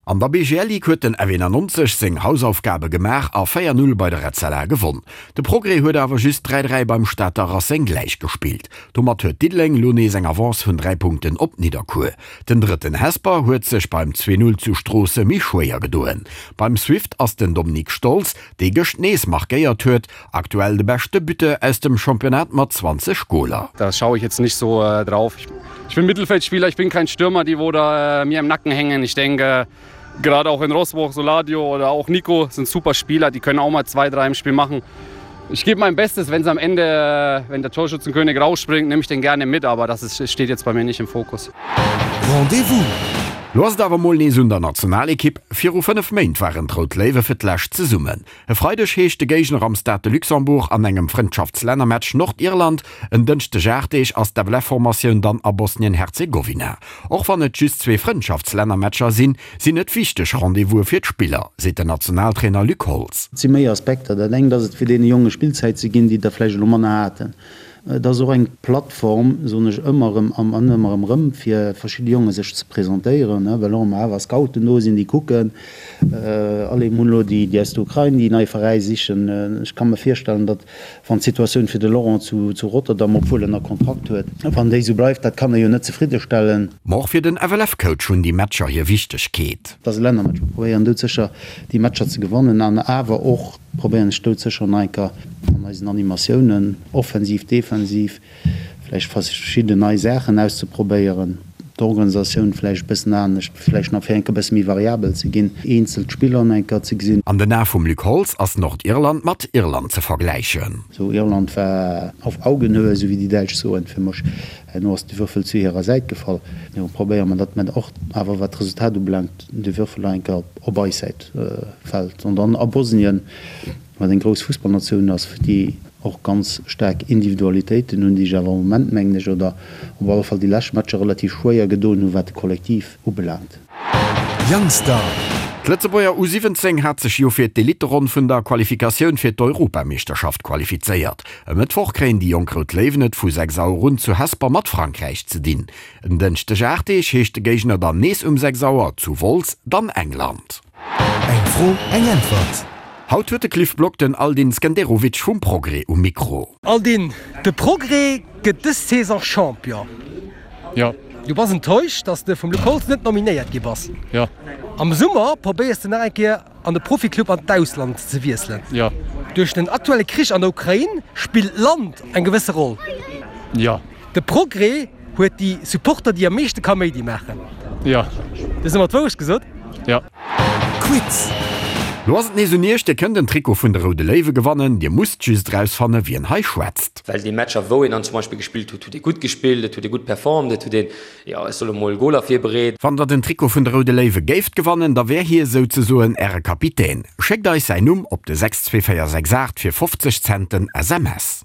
An der BGL Ligue huet den F91 seng Hausaufgabe gemaach a 4, 0 bei der Etzella gewonn. De Progrès huet awer just 3, 3 beim Stater Racing gläichgespillt. Domat huet Diddeleng elo nees eng Avance vun 3 Punkten op Nidderkuer. Den drëtten Hesper huet sech beim 2, 0 zu Stroosse méi schwéier gedoen. Beim Swift ass den Dominique Stolz, dee gëscht nees markéiert huet, aktuell de beschte Buteur aus dem Championnat mat 20 Goler. Da schaue ich jetzt nicht so drauf. Ich bin Mittelfeldspieler, ich bin kein Stürmer, die wo da mir im Nacken hängen. Ich denke, gerade auch in Rossburg, Soladio oder auch Nico sind super Spieler, die können auch mal zwei, drei im Spiel machen. Ich gebe mein Bestes, wenn es am Ende, wenn der Torschützenkönig rausspringt, nehme ich den gerne mit, aber das ist, steht jetzt bei mir nicht im Fokus. Rendez-vous! Lo ass et awer mol nees un der Nationalekipp. Viru 5 Méint waren d'Rout Léiwe fir d'lescht zesummen. E Freideg heescht de Géigner am Stade de Luxembourg an engem Frëndschaftslännermatch Nordirland. En Dënschdeg 8 Deeg ass d'FLF-Formatioun dann a Bosnien-Herzegowina. Och wann et just zwee Frëndschaftslännermatcher sinn, sinn et wichteg Rendez-vouse fir d'Spiller, seet den Nationaltrainer Luc Holtz. Et si méi Aspekter. Dat engt ass et fir deene Jonge Spillzäit ze ginn, déi der vläicht elo manner haten. Et ass och eng Plattform, soen ech ëmmer erëm an ëmmer erëm erëm, fir verschidde Jonge sech ze presentéieren, well och ëmmer awer Scouten do sinn, déi kucken. Allez, mir hunn elo déi aus der Ukrain, déi nei Veräi sichen. Ech ka mer virstellen, datt, wann d'Situatioun fir de Laurent zu Rotterdam, obwuel en nach Kontrakt huet, wann déi esou bleift, dat kann e jo net zefriddestellen. Ma och fir den FLF-Coach hunn déi Matcher hir Wichtegkeet. Et ass e Lännermatch. Mir probéieren doudsécher, déi Matcher ze gewannen an awer och, Probéieren ech doudsécher nach eng Kéier an eisen Animatiounen, offensiv, defensiv, vläicht verschidden nei Saachen auszeprobéieren, d'Organisatioun vläicht e bëssen anescht, vläicht nach fir eng Kéier e bësse méi variabel ze ginn, eenzel Spiller nach eng Kéier ze gesinn. An den Ae vum Luc Holtz ass Nordirland mat Irland ze vergläichen. Sou, Irland war auf Augenhöhe, sou wéi déi Däitsch soen, fir mech. Herno ass de Würfel zu hirer Säit gefall. Elo probéiere mer, datt mer och awer, wat d'Resultat ubelaangt, de Würfel nach eng Kéier op eis Säit fält. An dann a Bosnien, wat eng grouss Fussballnatioun ass, déi och ganz staark Individualitéiten hunn, déi sech awer am Moment, mengen ech, oder op alle Fall déi lescht Matcher relativ schwéier gedoen hunn, wat de Kollektiv ubelaangt. Youngstar. D'Lëtzebuerger U 17 hat sech jo fir d'Elitteronn vun der Qualifikatioun fir d'Europameeschterschaft qualifizéiert. E Mëttwoch kréien déi jonk Rout Léiwen et vu 6 Auer un zu Hesper mat Frankräich ze dinn. En Dënschdeg 8 Deeg heescht de Géigner dann nees um 6 Auer zu Wolz, dann England. Eng Fro, eng Äntwert. Haut huet de Cliff Block den Aldin Skenderovic vum Progrès um Mikro. Aldin, de Progrès gëtt dës Saison Champion. Jo. Du bass enttäuscht, dass de vum Luc Holtz net nominéiert gi bass. Jo. Am Summer probéiers de nach eng Kéier an de Proficlub an d'Ausland ze wiesselen. Jo. Duerch den aktuelle Krich an der Ukrain spillt d'Land eng gewësse Roll. Jo. De Progrès huet déi Supporter déi am meeschte Kaméidi maachen. Jo. Du hues ëmmer d'Wourecht gesot? Jo. Quiz. Lo ass et nees un iech, Dir kënnt en Trikot vun de Roude Léiwe gewannen. Dir musst just erausfanne wien hei schwätzt. Well déi Matcher wou een dann zum Beispill gespillt huet, huet ee gutt gespillt, et huet ee gutt performt, et huet een, jo ech soe mol, Goler virbereet. Wann der den Trikot vun de Roude Léiwe géift gewannen, da wär hie souzesoen äre Kapitän. Schéckt eis säin Numm op de 62468 fir 50 Cent den SMS.